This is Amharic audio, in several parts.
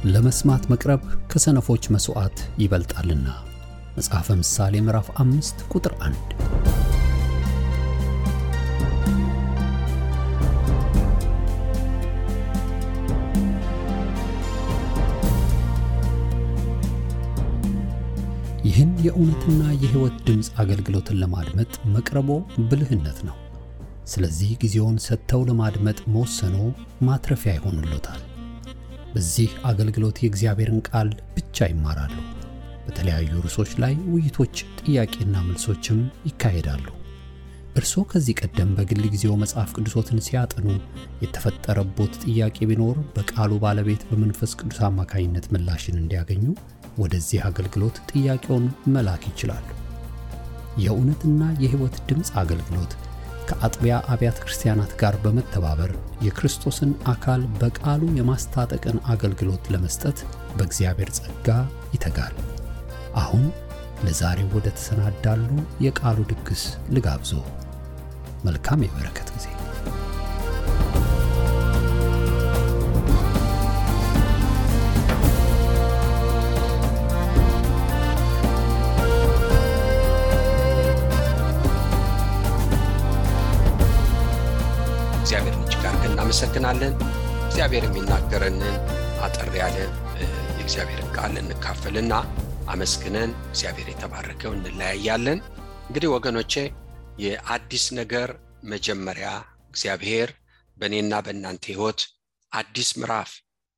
ለመስማት መቅረብ ከሰነፎች መስዋዕት ይበልጣልና። መጽሐፈ ምሳሌ ምዕራፍ 5 ቁጥር 1። ይህን የእውነትና የሕይወት ድምፅ አገልግሎትን ለማድመጥ መቅረቦ ብልህነት ነው። ስለዚህ ጊዜውን ሰጥተው ለማድመጥ መወሰኖ ማትረፊያ ይሆንልዎታል። በዚህ አገልግሎት የእግዚአብሔርን ቃል ብቻ ይማራሉ። በተለያዩ ርዕሶች ላይ ውይይቶች፣ ጥያቄና መልሶችም ይካሄዳሉ። እርስዎ ከዚህ ቀደም በግል ጊዜው መጽሐፍ ቅዱሶትን ሲያጠኑ የተፈጠረቦት ጥያቄ ቢኖር በቃሉ ባለቤት በመንፈስ ቅዱስ አማካኝነት ምላሽን እንዲያገኙ ወደዚህ አገልግሎት ጥያቄውን መላክ ይችላሉ። የእውነትና የሕይወት ድምፅ አገልግሎት ከአጥቢያ አብያተ ክርስቲያናት ጋር በመተባበር የክርስቶስን አካል በቃሉ የማስታጠቅን አገልግሎት ለመስጠት በእግዚአብሔር ጸጋ ይተጋል። አሁን ለዛሬው ወደ ተሰናዳሉ የቃሉ ድግስ ልጋብዞ። መልካም የበረከት ጊዜ። እግዚአብሔርን እጅግ አድርገን እናመሰግናለን። እግዚአብሔር የሚናገረንን አጠር ያለ የእግዚአብሔርን ቃል እንካፈልና አመስግነን እግዚአብሔር የተባረከው እንለያያለን። እንግዲህ ወገኖቼ የአዲስ ነገር መጀመሪያ እግዚአብሔር በእኔና በእናንተ ሕይወት አዲስ ምዕራፍ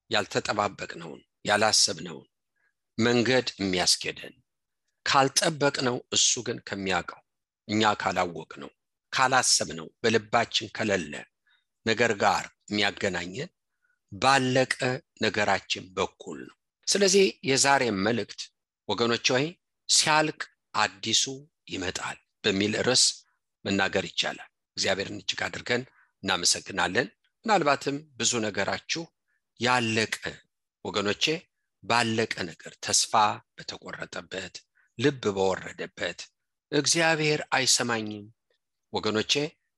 ያልተጠባበቅነውን ያላሰብነውን መንገድ የሚያስኬደን ካልጠበቅነው እሱ ግን ከሚያውቀው እኛ ካላወቅነው ካላሰብነው በልባችን ከሌለ ነገር ጋር የሚያገናኘን ባለቀ ነገራችን በኩል ነው። ስለዚህ የዛሬ መልእክት ወገኖች ሆይ ሲያልቅ አዲሱ ይመጣል በሚል ርዕስ መናገር ይቻላል። እግዚአብሔርን እጅግ አድርገን እናመሰግናለን። ምናልባትም ብዙ ነገራችሁ ያለቀ ወገኖቼ ባለቀ ነገር ተስፋ በተቆረጠበት ልብ በወረደበት እግዚአብሔር አይሰማኝም ወገኖቼ፣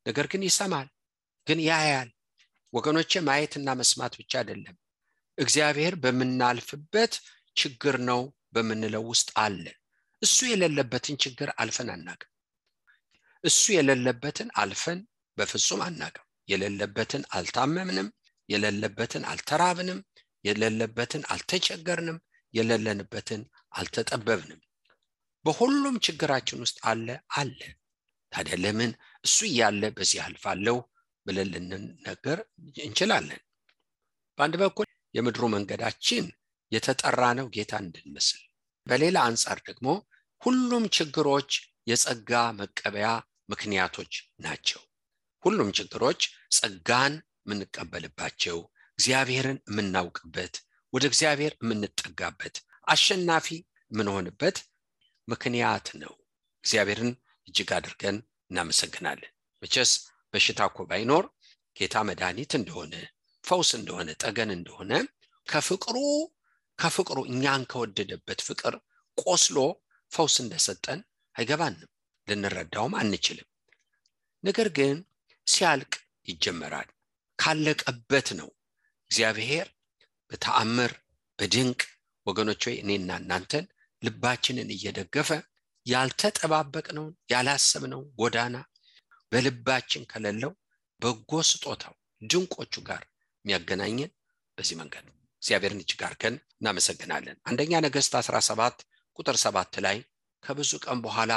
ነገር ግን ይሰማል፣ ግን ያያል ወገኖቼ። ማየትና መስማት ብቻ አይደለም፣ እግዚአብሔር በመናልፍበት ችግር ነው በመንለው ውስጥ አለ። እሱ የሌለበትን ችግር አልፈን አናውቅም። እሱ የሌለበትን አልፈን በፍጹም አናውቅም። የሌለበትን አልታመምንም፣ የሌለበትን አልተራብንም፣ የሌለበትን አልተቸገርንም፣ የሌለንበትን አልተጠበብንም። በሁሉም ችግራችን ውስጥ አለ። ታዲያ ለምን እሱ ያለ በዚህ አልፋለሁ ብለን ልንነገር እንችላለን? በአንድ በኩል የምድሩ መንገዳችን የተጠራ ነው ጌታ እንድንመስል፣ በሌላ አንጻር ደግሞ ሁሉም ችግሮች የጸጋ መቀበያ ምክንያቶች ናቸው። ሁሉም ችግሮች ጸጋን የምንቀበልባቸው፣ እግዚአብሔርን የምናውቅበት፣ ወደ እግዚአብሔር የምንጠጋበት፣ አሸናፊ የምንሆንበት ምክንያት ነው። እግዚአብሔርን እጅግ አድርገን እናመሰግናለን። መቼስ በሽታ እኮ ባይኖር ጌታ መድኃኒት እንደሆነ፣ ፈውስ እንደሆነ፣ ጠገን እንደሆነ ከፍቅሩ እኛን ከወደደበት ፍቅር ቆስሎ ፈውስ እንደሰጠን አይገባንም፣ ልንረዳውም አንችልም። ነገር ግን ሲያልቅ ይጀመራል። ካለቀበት ነው እግዚአብሔር በተአምር በድንቅ ወገኖች ሆይ እኔና እናንተን ልባችንን እየደገፈ ያልተጠባበቅነውን ያላሰብነው ጎዳና በልባችን ከሌለው በጎ ስጦታው ድንቆቹ ጋር የሚያገናኘን በዚህ መንገድ ነው። እግዚአብሔርን እጅግ አድርገን እናመሰግናለን። አንደኛ ነገሥት 17 ቁጥር 7 ላይ ከብዙ ቀን በኋላ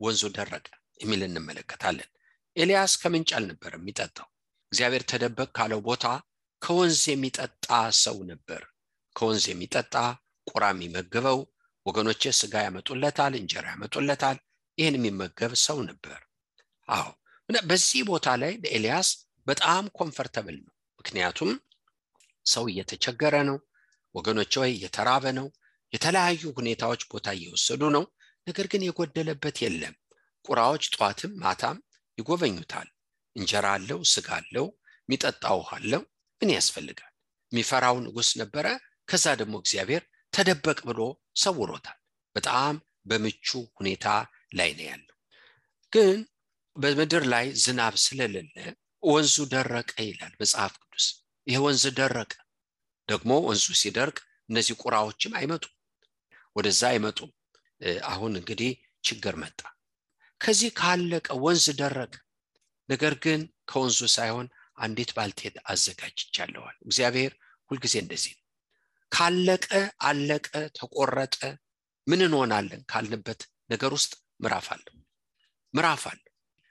ወንዙ ደረቀ የሚል እንመለከታለን። ኤልያስ ከምንጭ አልነበረም የሚጠጣው። እግዚአብሔር ተደበቅ ካለው ቦታ ከወንዝ የሚጠጣ ሰው ነበር። ከወንዝ የሚጠጣ ቁራ የሚመገበው ወገኖቼ ስጋ ያመጡለታል፣ እንጀራ ያመጡለታል። ይህን የሚመገብ ሰው ነበር። በዚህ ቦታ ላይ ለኤልያስ በጣም ኮምፈርተብል ነው። ምክንያቱም ሰው እየተቸገረ ነው ወገኖቼ፣ እየተራበ ነው። የተለያዩ ሁኔታዎች ቦታ እየወሰዱ ነው። ነገር ግን የጎደለበት የለም። ቁራዎች ጧትም ማታም ይጎበኙታል። እንጀራ አለው፣ ስጋ አለው፣ የሚጠጣ ውሃ አለው። ምን ያስፈልጋል? የሚፈራው ንጉሥ ነበረ። ከዛ ደግሞ እግዚአብሔር ተደበቅ ብሎ ሰውሮታል። በጣም በምቹ ሁኔታ ላይ ነው ያለው። ግን በምድር ላይ ዝናብ ስለሌለ ወንዙ ደረቀ ይላል መጽሐፍ ቅዱስ። ይሄ ወንዝ ደረቀ። ደግሞ ወንዙ ሲደርቅ እነዚህ ቁራዎችም አይመጡም፣ ወደዛ አይመጡም። አሁን እንግዲህ ችግር መጣ። ከዚህ ካለቀ ወንዝ ደረቀ። ነገር ግን ከወንዙ ሳይሆን አንዲት ባልቴት አዘጋጅቻለሁ። እግዚአብሔር ሁልጊዜ እንደዚህ ነው። ካለቀ አለቀ፣ ተቆረጠ፣ ምን እንሆናለን ካልንበት ነገር ውስጥ ምዕራፍ አለው።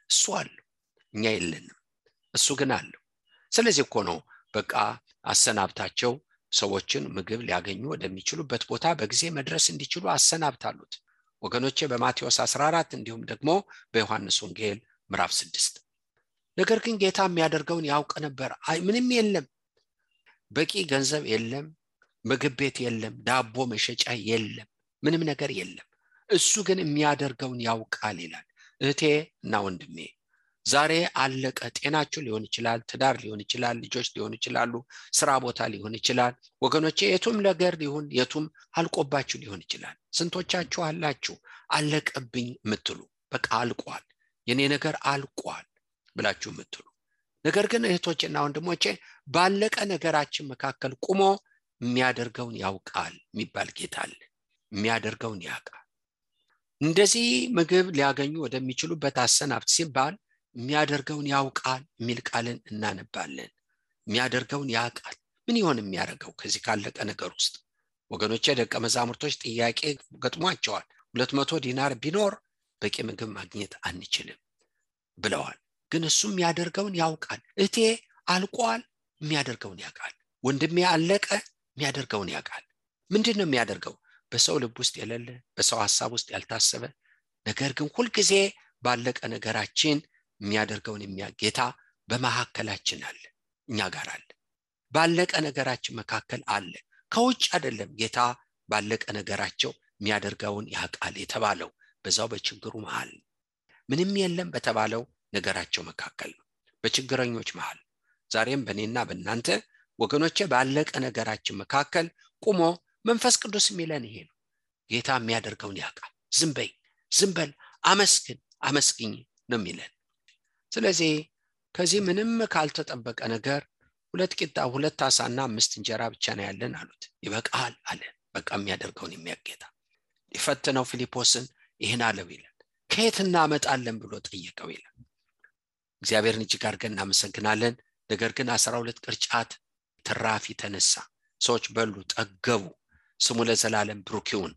እሱ አለው፣ እኛ የለንም፣ እሱ ግን አለው። ስለዚህ እኮ ነው በቃ አሰናብታቸው፣ ሰዎችን ምግብ ሊያገኙ ወደሚችሉበት ቦታ በጊዜ መድረስ እንዲችሉ አሰናብታሉት። ወገኖቼ በማቴዎስ 14 እንዲሁም ደግሞ በዮሐንስ ወንጌል ምዕራፍ 6። ነገር ግን ጌታ የሚያደርገውን ያውቅ ነበር። ምንም የለም፣ በቂ ገንዘብ የለም፣ ምግብ ቤት የለም፣ ዳቦ መሸጫ የለም፣ ምንም ነገር የለም። እሱ ግን የሚያደርገውን ያውቃል ይላል። እህቴ እና ወንድሜ ዛሬ አለቀ። ጤናችሁ ሊሆን ይችላል፣ ትዳር ሊሆን ይችላል፣ ልጆች ሊሆን ይችላሉ፣ ስራ ቦታ ሊሆን ይችላል። ወገኖቼ የቱም ነገር ሊሆን የቱም አልቆባችሁ ሊሆን ይችላል። ስንቶቻችሁ አላችሁ አለቀብኝ የምትሉ፣ በቃ አልቋል፣ የኔ ነገር አልቋል ብላችሁ የምትሉ። ነገር ግን እህቶችና ወንድሞቼ ባለቀ ነገራችን መካከል ቁሞ የሚያደርገውን ያውቃል የሚባል ጌታ አለ። የሚያደርገውን ያውቃል። እንደዚህ ምግብ ሊያገኙ ወደሚችሉበት አሰናብት ሲባል የሚያደርገውን ያውቃል የሚል ቃልን እናነባለን። የሚያደርገውን ያውቃል። ምን ይሆን የሚያደርገው ከዚህ ካለቀ ነገር ውስጥ? ወገኖቼ ደቀ መዛሙርቶች ጥያቄ ገጥሟቸዋል። 200 ዲናር ቢኖር በቂ ምግብ ማግኘት አንችልም ብለዋል። ግን እሱ የሚያደርገውን ያውቃል። እቴ አልቋል፣ የሚያደርገውን ያውቃል። ወንድሜ አለቀ፣ የሚያደርገውን ያውቃል። ምንድነው የሚያደርገው? በሰው ልብ ውስጥ የሌለ፣ በሰው ሐሳብ ውስጥ ያልታሰበ፣ ነገር ግን ሁልጊዜ ባለቀ ነገራችን የሚያደርገውን ጌታ በመካከላችን አለ፣ እኛ ጋር አለ። ባለቀ ነገራችን መካከል አለ። ከውጭ አይደለም። ጌታ ባለቀ ነገራቸው የሚያደርገውን ያውቃል የተባለው በዛው በችግሩ መሃል፣ ምንም የለም በተባለው ነገራቸው መካከል ነው፣ በችግረኞች መሃል። ዛሬም በእኔና በእናንተ ወገኖቼ ባለቀ ነገራችን መካከል ቁሞ መንፈስ ቅዱስ የሚለን ይሄ ነው። ጌታ የሚያደርገውን ያውቃል። ዝም በል፣ አመስግኝ ነው የሚለን። ስለዚህ ከዚህ ምንም ካልተጠበቀ ነገር 2 ቂጣ 2 ዓሳና 5 እንጀራ ብቻ ነው ያለን አሉት። ይበቃል አለ። በቃ የሚያደርገውን የሚያጌታ ይፈትነው ፊልጶስን ይሄን አለው ይላል። ከየት እናመጣለን ብሎ ጠየቀው ይላል። እግዚአብሔርን እጅግ አድርገን እናመሰግናለን። ነገር ግን 12 ቅርጫት ትራፊ ተነሳ። ሰዎች በሉ፣ ጠገቡ። ስሙ ለዘላለም ብሩክ ይሁን።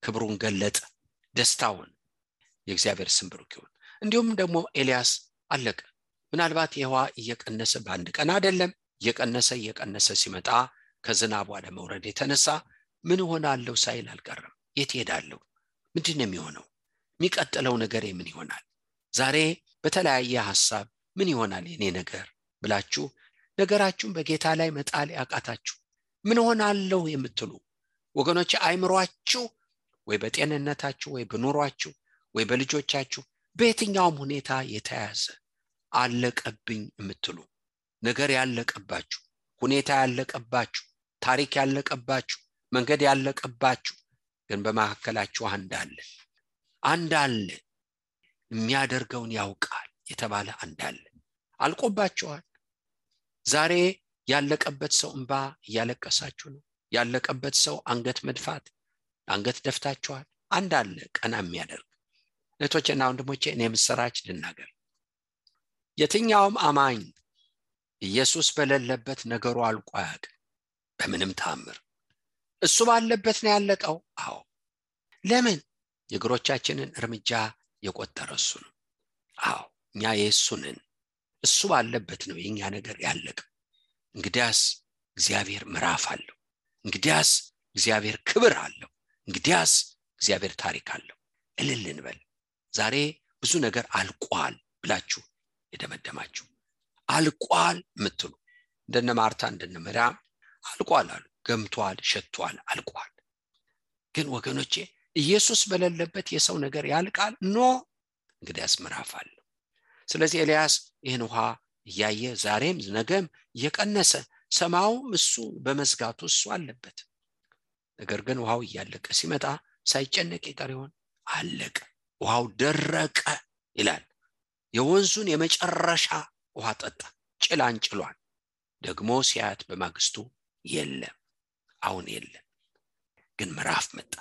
ክብሩን ገለጠ፣ ደስታውን። የእግዚአብሔር ስም ብሩክ ይሁን። እንዲሁም ደግሞ ኤልያስ አለቀ። ምናልባት የውሃ እየቀነሰ በአንድ ቀን አይደለም፣ እየቀነሰ ሲመጣ ከዝናቡ አለመውረድ የተነሳ ምን ሆናለሁ ሳይል አልቀረም። የት ሄዳለሁ? ምንድነው የሚሆነው? የሚቀጥለው ነገር ምን ይሆናል? ዛሬ በተለያየ ሐሳብ ምን ይሆናል የኔ ነገር ብላችሁ ነገራችሁን በጌታ ላይ መጣል ያቃታችሁ፣ ምን ሆናለሁ የምትሉ ወገኖች፣ አይምሯችሁ ወይ በጤንነታችሁ ወይ በኑሯችሁ ወይ በልጆቻችሁ በየትኛውም ሁኔታ የተያዘ አለቀብኝ የምትሉ ነገር ያለቀባችሁ፣ ሁኔታ ያለቀባችሁ፣ ታሪክ ያለቀባችሁ፣ መንገድ ያለቀባችሁ፣ ግን በመካከላችሁ አንድ አለ የሚያደርገውን ያውቃል የተባለ አንድ አለ። አልቆባችኋል። ዛሬ ያለቀበት ሰው እንባ እያለቀሳችሁ ነው። ያለቀበት ሰው አንገት መድፋት፣ አንገት ደፍታችኋል። አንድ አለ ቀና የሚያደርግ። እህቶቼና ወንድሞቼ እኔ ምስራች ልናገር። የትኛውም አማኝ ኢየሱስ በሌለበት ነገሩ አልቆ አያውቅም በምንም ተአምር። እሱ ባለበት ነው ያለቀው። አዎ፣ ለምን? የእግሮቻችንን እርምጃ የቆጠረ እሱ ነው። አዎ፣ እኛ የእሱ ነን። እሱ ባለበት ነው የኛ ነገር ያለቀው። እንግዲያስ እግዚአብሔር ምዕራፍ አለው። እንግዲያስ እግዚአብሔር ክብር አለው። እንግዲያስ እግዚአብሔር ታሪክ አለው። እልል እንበል። ዛሬ ብዙ ነገር አልቋል ብላችሁ የደመደማችሁ፣ አልቋል ምትሉ እንደነ ማርታ እንደነ መርያም አልቋል አሉ። ገምቷል፣ ሸቷል፣ አልቋል። ግን ወገኖቼ ኢየሱስ በሌለበት የሰው ነገር ያልቃል? ኖ፣ እንግዲያስ ምዕራፍ አለው። ስለዚህ ኤልያስ ይህን ውሃ እያየ ዛሬም ነገም እየቀነሰ ሰማዩም እሱ በመዝጋቱ እሱ አለበት። ነገር ግን ውሃው እያለቀ ሲመጣ ሳይጨነቅ ይቀር ይሆን? አለቀ። ውሃው ደረቀ ይላል። የወንዙን የመጨረሻ ውሃ ጠጣ። ጭላንጭሏን ደግሞ ሲያት በማግስቱ የለም። አሁን የለም። ግን ምዕራፍ መጣ።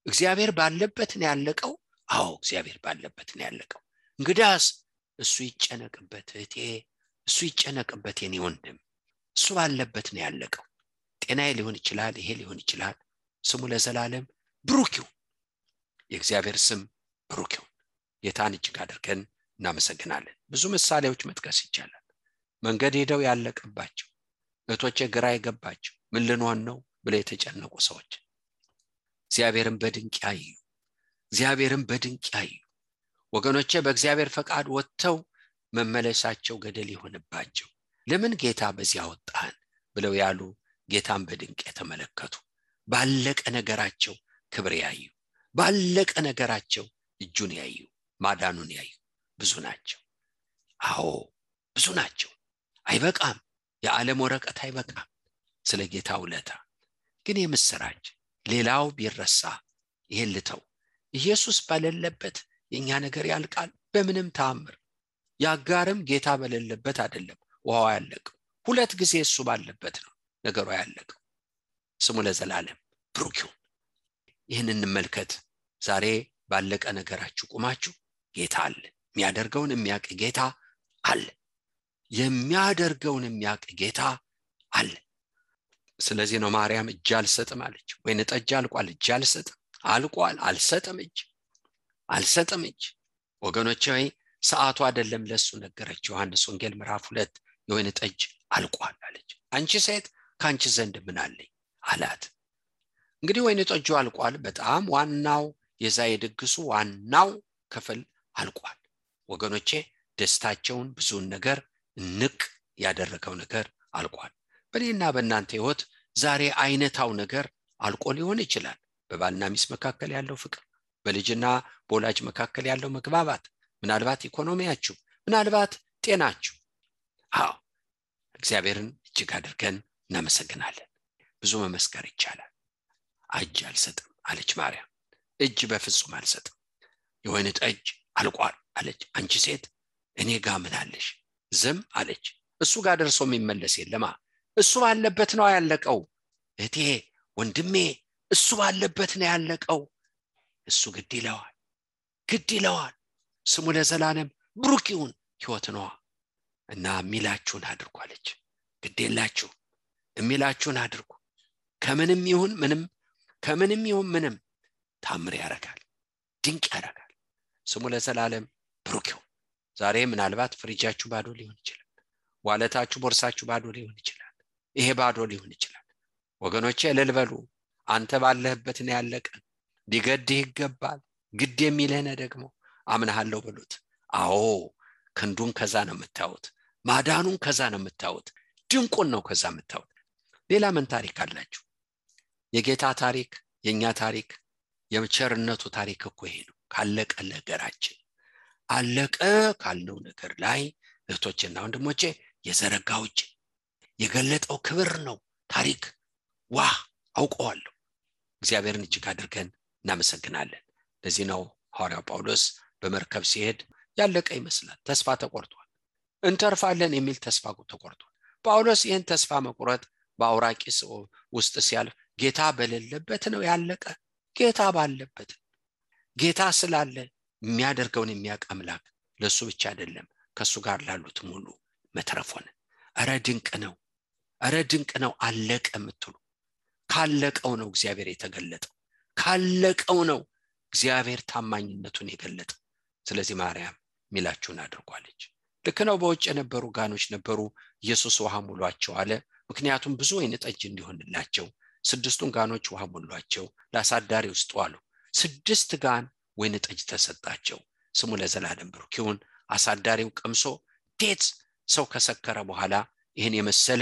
እግዚአብሔር ባለበት ነው ያለቀው። አዎ እግዚአብሔር ባለበት ነው ያለቀው። እንግዳስ እሱ ይጨነቅበት እህቴ፣ እሱ ይጨነቅበት የኔ ወንድም፣ እሱ ባለበት ነው ያለቀው። ጤናዬ ሊሆን ይችላል፣ ይሄ ሊሆን ይችላል። ስሙ ለዘላለም ብሩክ ይሁን። የእግዚአብሔር ስም ብሩክ ይሁን። ጌታን እጅግ አድርገን እናመሰግናለን። ብዙ ምሳሌዎች መጥቀስ ይቻላል። መንገድ ሄደው ያለቀባቸው እህቶቼ፣ ግራ የገባቸው ምን ልንሆን ነው ብለው የተጨነቁ ሰዎች እግዚአብሔርን በድንቅ ያዩ፣ እግዚአብሔርን በድንቅ ያዩ ወገኖቼ፣ በእግዚአብሔር ፈቃድ ወጥተው መመለሳቸው ገደል ይሆንባቸው ለምን ጌታ በዚያ ወጣን ብለው ያሉ ጌታን በድንቅ የተመለከቱ፣ ባለቀ ነገራቸው ክብር ያዩ፣ ባለቀ ነገራቸው እጁን ያዩ፣ ማዳኑን ያዩ ብዙ ናቸው። አዎ ብዙ ናቸው። አይበቃም፣ የዓለም ወረቀት አይበቃም ስለ ጌታ ውለታ። ግን የምስራች ሌላው ቢረሳ ይሄን ልተው፣ ኢየሱስ በሌለበት የኛ ነገር ያልቃል በምንም ተአምር። ያጋርም ጌታ በሌለበት አይደለም ውሃው ያለቀው፣ ሁለት ጊዜ እሱ ባለበት ነው ነገሩ ያለቀው። ስሙ ለዘላለም ብሩክ ይሁን። ይህን እንመልከት። ዛሬ ባለቀ ነገራችሁ ቁማችሁ ጌታ አለ፣ የሚያደርገውን የሚያውቅ ጌታ አለ፣ የሚያደርገውን የሚያውቅ ጌታ አለ። ስለዚህ ነው ማርያም እጅ አልሰጥም አለች። ወይን ጠጅ አልቋል፣ እጅ አልሰጥም፣ አልቋል፣ አልሰጥም እጅ። ወገኖቼ ሆይ ሰዓቱ አይደለም ለሱ ነገረች። ዮሐንስ ወንጌል ምዕራፍ 2 የወይን ጠጅ አልቋል አለች። አንቺ ሴት ካንቺ ዘንድ ምን አለኝ አላት። እንግዲህ ወይን ጠጁ አልቋል። በጣም ዋናው የዛ የድግሱ ዋናው ክፍል አልቋል። ወገኖቼ ደስታቸውን ብዙን ነገር ንቅ ያደረገው ነገር አልቋል። በእኔና በእናንተ ህይወት ዛሬ አይነታው ነገር አልቆ ሊሆን ይችላል። በባልና ሚስት መካከል ያለው ፍቅር፣ በልጅና በወላጅ መካከል ያለው መግባባት፣ ምናልባት ኢኮኖሚያችሁ፣ ምናልባት ጤናችሁ። አዎ እግዚአብሔርን እጅግ አድርገን እናመሰግናለን። ብዙ መመስከር ይቻላል። እጅ አልሰጥም አለች ማርያም። እጅ በፍጹም አልሰጥም። የወይን ጠጅ አልቋል አለች። አንቺ ሴት እኔ ጋር ምን አለሽ? ዝም አለች። እሱ ጋር ደርሶ የሚመለስ የለማ። እሱ ባለበት ነው ያለቀው። እህቴ ወንድሜ፣ እሱ ባለበት ነው ያለቀው። እሱ ግድ ይለዋል። ስሙ ለዘላለም ብሩክ ይሁን። ሕይወት ነው እና የሚላችሁን አድርጉ አለች። ግድ የላችሁ የሚላችሁን አድርጉ። ከምንም ይሁን ምንም ታምር ያደርጋል፣ ድንቅ ያደርጋል። ስሙ ለዘላለም ብሩክ ይሁን። ዛሬ ምናልባት ፍሪጃችሁ ባዶ ሊሆን ይችላል። ዋለታችሁ ቦርሳችሁ ባዶ ሊሆን ይችላል። ይሄ ባዶ ሊሆን ይችላል። ወገኖቼ እልል በሉ። አንተ ባለህበት ነው ያለቀ። ሊገድህ ይገባል። ግድ የሚልህ ነው ደግሞ አምናለሁ በሉት። አዎ ክንዱን ከዛ ነው የምታዩት፣ ማዳኑን ከዛ ነው የምታዩት፣ ድንቁን ነው ከዛ የምታዩት። ሌላ ምን ታሪክ አላችሁ? የጌታ ታሪክ፣ የኛ ታሪክ፣ የቸርነቱ ታሪክ እኮ ይሄ ነው። ካለቀ ነገራችን አለቀ ካልነው ነገር ላይ እህቶችና ወንድሞቼ የዘረጋው እጅ የገለጠው ክብር ነው ታሪክ። አውቀዋለሁ። እግዚአብሔርን እጅግ አድርገን እናመሰግናለን። ለዚህ ነው ሐዋርያው ጳውሎስ በመርከብ ሲሄድ ያለቀ ይመስላል፣ ተስፋ ተቆርጧል፣ እንተርፋለን የሚል ተስፋ ተቆርጧል። ጳውሎስ ይህን ተስፋ መቁረጥ በአውራቂስ ውስጥ ሲያልፍ ጌታ በሌለበት ነው ያለቀ። ጌታ ባለበት፣ ጌታ ስላለ የሚያደርገውን የሚያውቅ አምላክ ለሱ ብቻ አይደለም ከሱ ጋር ላሉት ሙሉ መትረፍ ሆነ። ኧረ ድንቅ ነው አለቀ የምትሉ ካለቀው ነው እግዚአብሔር የተገለጠው፣ ካለቀው ነው እግዚአብሔር ታማኝነቱን የገለጠው። ስለዚህ ማርያም ሚላችሁን አድርጓለች። ልክ ነው። በውጭ የነበሩ ጋኖች ነበሩ። ኢየሱስ ውሃ ሙሏቸው አለ። ምክንያቱም ብዙ ወይን ጠጅ እንዲሆንላቸው 6ቱን ጋኖች ውሃ ሙሏቸው ለአሳዳሪ ውስጥ ዋሉ። 6 ጋን ወይን ጠጅ ተሰጣቸው። ስሙ ለዘላለም ብሩክ ይሁን። አሳዳሪው ቀምሶ ዴት ሰው ከሰከረ በኋላ ይህን የመሰለ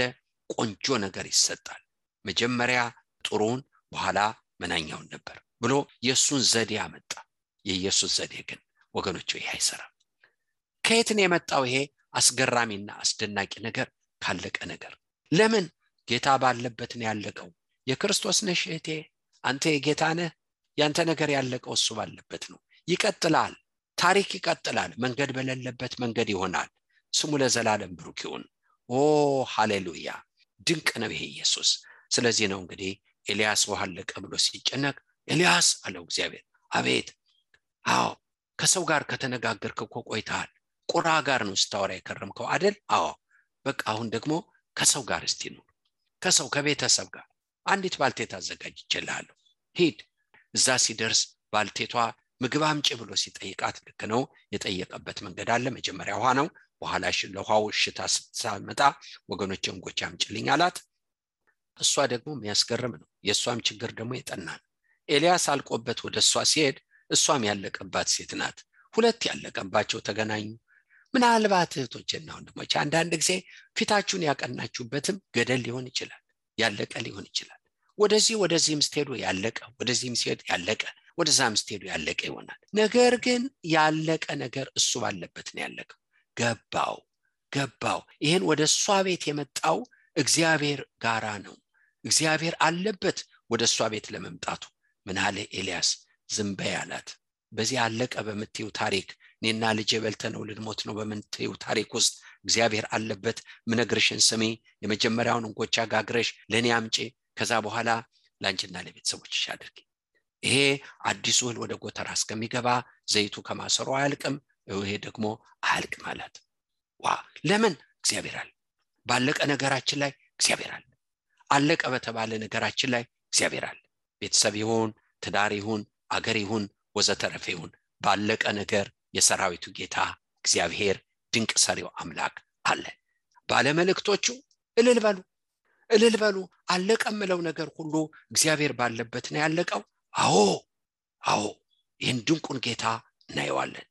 ቆንጆ ነገር ይሰጣል። መጀመሪያ ጥሩን በኋላ መናኛውን ነበር ብሎ የሱን ዘዴ አመጣ። የኢየሱስ ዘዴ ግን ወገኖቹ ይሄ አይሰራም። ከየት ነው የመጣው ይሄ አስገራሚና አስደናቂ ነገር? ካለቀ ነገር። ለምን? ጌታ ባለበት ነው ያለቀው። የክርስቶስ ነሽ እህቴ፣ አንተ የጌታ ነህ። ያንተ ነገር ያለቀው እሱ ባለበት ነው። ይቀጥላል፣ ታሪክ ይቀጥላል። መንገድ በሌለበት መንገድ ይሆናል። ስሙ ለዘላለም ብሩክ ይሁን። ሃሌሉያ! ድንቅ ነው ይሄ ኢየሱስ። ስለዚህ ነው እንግዲህ ኤልያስ ውሃ አለቀ ብሎ ሲጨነቅ ኤልያስ አለው እግዚአብሔር። አቤት። አዎ ከሰው ጋር ከተነጋገርክ እኮ ቆይተሃል። ቁራ ጋር ነው ስታወራ የከረምከው አይደል? አዎ በቃ አሁን ደግሞ ከሰው ጋር እስቲ ነው፣ ከሰው ከቤተሰብ ጋር አንዲት ባልቴት አዘጋጅቼልሃለሁ፣ ሂድ። እዛ ሲደርስ ባልቴቷ ምግብ አምጪ ብሎ ሲጠይቃት ልክ ነው የጠየቀበት መንገድ አለ። መጀመሪያ ውሃ ነው፣ በኋላ ለውሃው እሽታ ስትመጣ ወገኖቼ እንጎቻ አምጪልኝ አላት። እሷ ደግሞ የሚያስገርም ነው፣ የእሷም ችግር ደግሞ የጠና ነው። ኤልያስ አልቆበት ወደ እሷ ሲሄድ እሷም ያለቀባት ሴት ናት። ሁለት ያለቀባቸው ተገናኙ። ምናልባት እህቶችና ወንድሞች አንዳንድ ጊዜ ፊታችሁን ያቀናችሁበትም ገደል ሊሆን ይችላል፣ ያለቀ ሊሆን ይችላል። ወደዚህም ስትሄዱ ያለቀ፣ ወደዚህም ሲሄድ ያለቀ፣ ወደዛም ስትሄዱ ያለቀ ይሆናል። ነገር ግን ያለቀ ነገር እሱ ባለበት ነው ያለቀው። ገባው። ይሄን ወደ እሷ ቤት የመጣው እግዚአብሔር ጋራ ነው። እግዚአብሔር አለበት ወደ እሷ ቤት ለመምጣቱ። ምን አለ ኤልያስ? ዝም በይ አላት። በዚህ አለቀ በምትዩ ታሪክ እኔና ልጄ በልተነው ልንሞት ነው በምትዩ ታሪክ ውስጥ እግዚአብሔር አለበት። ምነግርሽን ስሚ። የመጀመሪያውን እንጎቻ ጋግረሽ ለኔ አምጪ፣ ከዛ በኋላ ላንቺና ለቤተሰቦችሽ አድርጊ። ይሄ አዲሱ እህል ወደ ጎተራ እስከሚገባ ዘይቱ ከማሰሮ አያልቅም፣ ይሄ ደግሞ አያልቅም አላት። ለምን? እግዚአብሔር አለ። ባለቀ ነገራችን ላይ እግዚአብሔር አለ። አለቀ በተባለ ነገራችን ላይ እግዚአብሔር አለ። ቤተሰብ ይሁን፣ ትዳር ይሁን፣ አገር ይሁን፣ ወዘተረፈ ይሁን፣ ባለቀ ነገር የሰራዊቱ ጌታ እግዚአብሔር ድንቅ ሰሪው አምላክ አለ። ባለመልእክቶቹ እልል በሉ። አለቀ የምለው ነገር ሁሉ እግዚአብሔር ባለበት ነው ያለቀው። አዎ ይህን ድንቁን ጌታ እናየዋለን።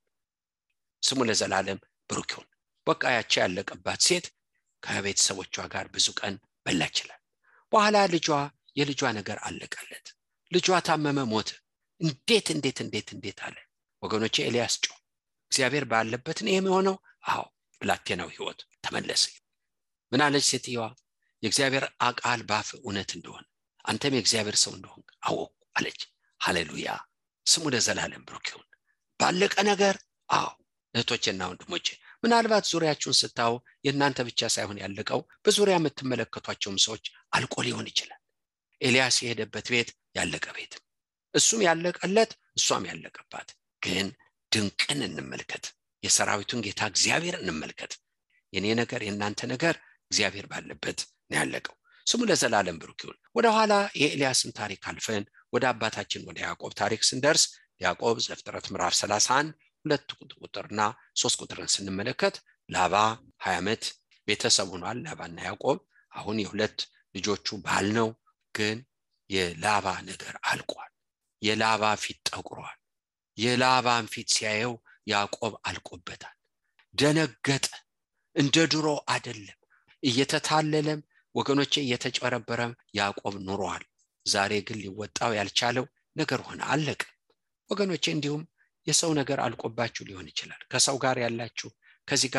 ስሙ ለዘላለም ብሩክ ይሁን። በቃ ያቺ ያለቀባት ሴት ከቤተሰቦቿ ጋር ብዙ ቀን በላችላል። በኋላ የልጇ ነገር አለቀለት። ልጇ ታመመ፣ ሞተ። እንዴት አለ ወገኖቼ። ኤልያስ ጮኸ። እግዚአብሔር ባለበት ነው የሚሆነው። አዎ ብላቴናው ህይወት ተመለሰ። ምን አለች ሴትየዋ? የእግዚአብሔር ቃል ባፍ እውነት እንደሆነ አንተም የእግዚአብሔር ሰው እንደሆን አወቁ አለች። ሃሌሉያ። ስሙ ለዘላለም ብሩክ ይሁን። ባለቀ ነገር እህቶቼና ወንድሞቼ ምናልባት ዙሪያችሁን ስታዩ የእናንተ ብቻ ሳይሆን ያለቀው በዙሪያ የምትመለከቷቸውም ሰዎች አልቆ ሊሆን ይችላል። ኤልያስ የሄደበት ቤት ያለቀ ቤት፣ እሱም ያለቀለት፣ እሷም ያለቀባት። ግን ድንቅን እንመልከት። የሰራዊቱን ጌታ እግዚአብሔር እንመልከት። የኔ ነገር የእናንተ ነገር እግዚአብሔር ባለበት ነው ያለቀው። ስሙ ለዘላለም ብሩክ ይሁን። ወደ ኋላ የኤልያስን ታሪክ አልፈን ወደ አባታችን ወደ ያዕቆብ ታሪክ ስንደርስ ያዕቆብ ዘፍጥረት ምዕራፍ 31 2 ቁጥርና 3 ቁጥርን ስንመለከት ላባ 20 ዓመት ቤተሰብ ሆኗል። ላባና ያዕቆብ አሁን የሁለት ልጆቹ ባል ነው። ግን የላባ ነገር አልቋል። የላባ ፊት ጠቁሯል። የላባን ፊት ሲያየው ያዕቆብ አልቆበታል። ደነገጠ። እንደ ድሮ አይደለም። እየተታለለም ወገኖቼ እየተጨረበረም ያዕቆብ ኑሯል። ዛሬ ግን ሊወጣው ያልቻለው ነገር ሆነ፣ አለቀ። ወገኖቼ እንዲሁም የሰው ነገር አልቆባችሁ ሊሆን ይችላል። ከሰው ጋር ያላችሁ ከዚህ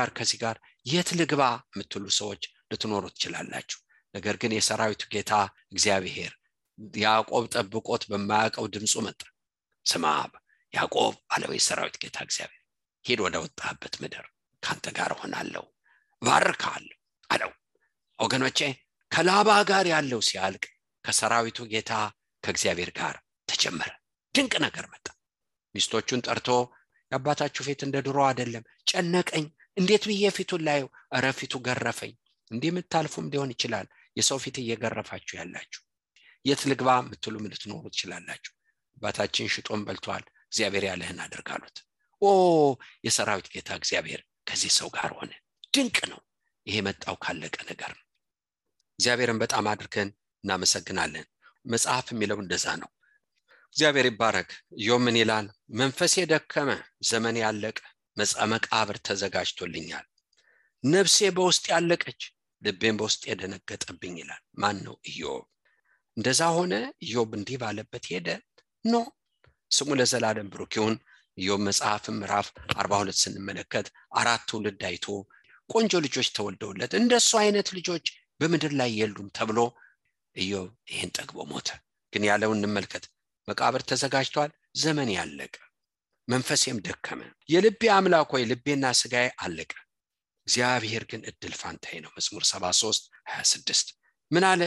ጋር የት ልግባ የምትሉ ሰዎች ልትኖሩ ትችላላችሁ። ነገር ግን የሰራዊቱ ጌታ እግዚአብሔር ያዕቆብ ጠብቆት በማያውቀው ድምፁ መጣ። ስማ ያዕቆብ አለው የሰራዊት ጌታ እግዚአብሔር፣ ሂድ ወደ ወጣህበት ምድር፣ ካንተ ጋር ሆናለሁ፣ ባርካለሁ አለው። ወገኖቼ ከላባ ጋር ያለው ሲያልቅ ከሰራዊቱ ጌታ ከእግዚአብሔር ጋር ተጀመረ። ድንቅ ነገር መጣ። ሚስቶቹን ጠርቶ የአባታችሁ ፊት እንደ ድሮ አይደለም፣ ጨነቀኝ፣ እንዴት ብዬ ፊቱን ላየው? ኧረ ፊቱ ገረፈኝ። እንዲህ የምታልፉም ሊሆን ይችላል። የሰው ፊት እየገረፋችሁ ያላችሁ የት ልግባ የምትሉ ልትኖሩ ትችላላችሁ። አባታችን ሽጦን በልቷል፣ እግዚአብሔር ያለህን አድርጋሉት። የሰራዊት ጌታ እግዚአብሔር ከዚህ ሰው ጋር ሆነ። ድንቅ ነው። ይሄ መጣው ካለቀ ነገር ነው። እግዚአብሔርን በጣም አድርገን እናመሰግናለን። መጽሐፍ የሚለው እንደዛ ነው። እግዚአብሔር ይባረክ። ኢዮብ ምን ይላል? መንፈሴ ደከመ፣ ዘመኔ ያለቀ፣ መቃብር ተዘጋጅቶልኛል። ነፍሴ በውስጥ ያለቀች፣ ልቤም በውስጥ የደነገጠብኝ ይላል። ማን ነው? ኢዮብ። እንደዛ ሆነ። ኢዮብ እንዲህ ባለበት ሄደ ነው። ስሙ ለዘላለም ብሩክ ይሁን። ኢዮብ መጽሐፍ ምዕራፍ 42 ስንመለከት 4 ትውልድ አይቶ ቆንጆ ልጆች ተወልደውለት እንደሱ አይነት ልጆች በምድር ላይ የሉም ተብሎ ኢዮብ ይሄን ጠግቦ ሞተ። ግን ያለውን እንመልከት። መቃብር ተዘጋጅቷል፣ ዘመን ያለቀ፣ መንፈሴም ደከመ፣ የልቤ አምላክ ሆይ ልቤና ስጋዬ አለቀ፣ እግዚአብሔር ግን እድል ፋንታዬ ነው። መዝሙር 73:26 ምን አለ?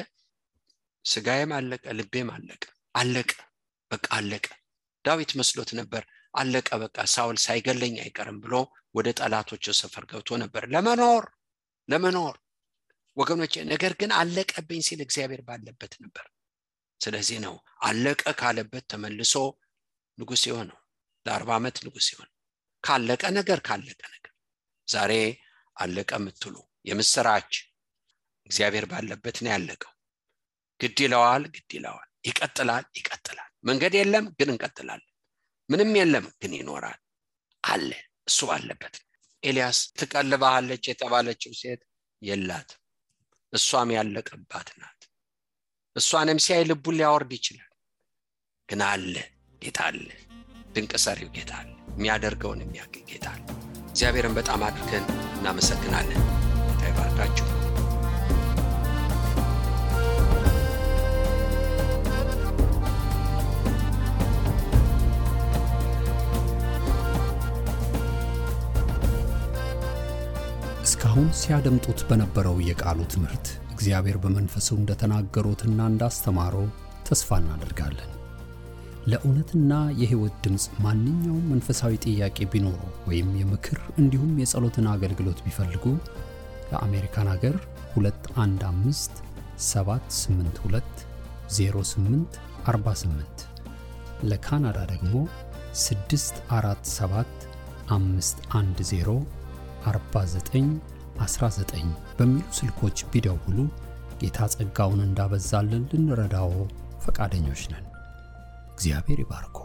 ስጋዬም አለቀ፣ ልቤም አለቀ። በቃ አለቀ። ዳዊት መስሎት ነበር አለቀ በቃ ሳውል ሳይገለኝ አይቀርም ብሎ ወደ ጠላቶቹ ሰፈር ገብቶ ነበር ለመኖር ወገኖቼ። ነገር ግን አለቀብኝ ሲል እግዚአብሔር ባለበት ነበር። ስለዚህ ነው አለቀ ካለበት ተመልሶ ንጉሥ የሆነው። ለ40 ዓመት ንጉሥ የሆነው ካለቀ ነገር ዛሬ አለቀ የምትሉ የምስራች፣ እግዚአብሔር ባለበት ነው ያለቀው። ግድ ይለዋል፣ ይቀጥላል። መንገድ የለም ግን እንቀጥላለን። ምንም የለም ግን ይኖራል አለ። እሱ ባለበት ኤልያስ ትቀልባለች የተባለችው ሴት የላት፣ እሷም ያለቀባት ናት። እሷንም ሲያይ ልቡን ሊያወርድ ይችላል። ግን አለ ጌታ አለ፣ ድንቅ ሰሪው ጌታ አለ፣ የሚያደርገውን የሚያውቅ ጌታ አለ። እግዚአብሔርን በጣም አድርገን እናመሰግናለን። ጌታ ይባርካችሁ። እስካሁን ሲያደምጡት በነበረው የቃሉ ትምህርት እግዚአብሔር በመንፈሱ እንደተናገሩትና እንዳስተማረው ተስፋ እናደርጋለን። ለእውነትና የሕይወት ድምጽ ማንኛውም መንፈሳዊ ጥያቄ ቢኖሩ ወይም የምክር እንዲሁም የጸሎትን አገልግሎት ቢፈልጉ ለአሜሪካን ሀገር 215-782-0848 ለካናዳ ደግሞ 647-510-4919 በሚሉ ስልኮች ቢደውሉ ጌታ ጸጋውን እንዳበዛልን ልንረዳው ፈቃደኞች ነን። እግዚአብሔር ይባርኮ።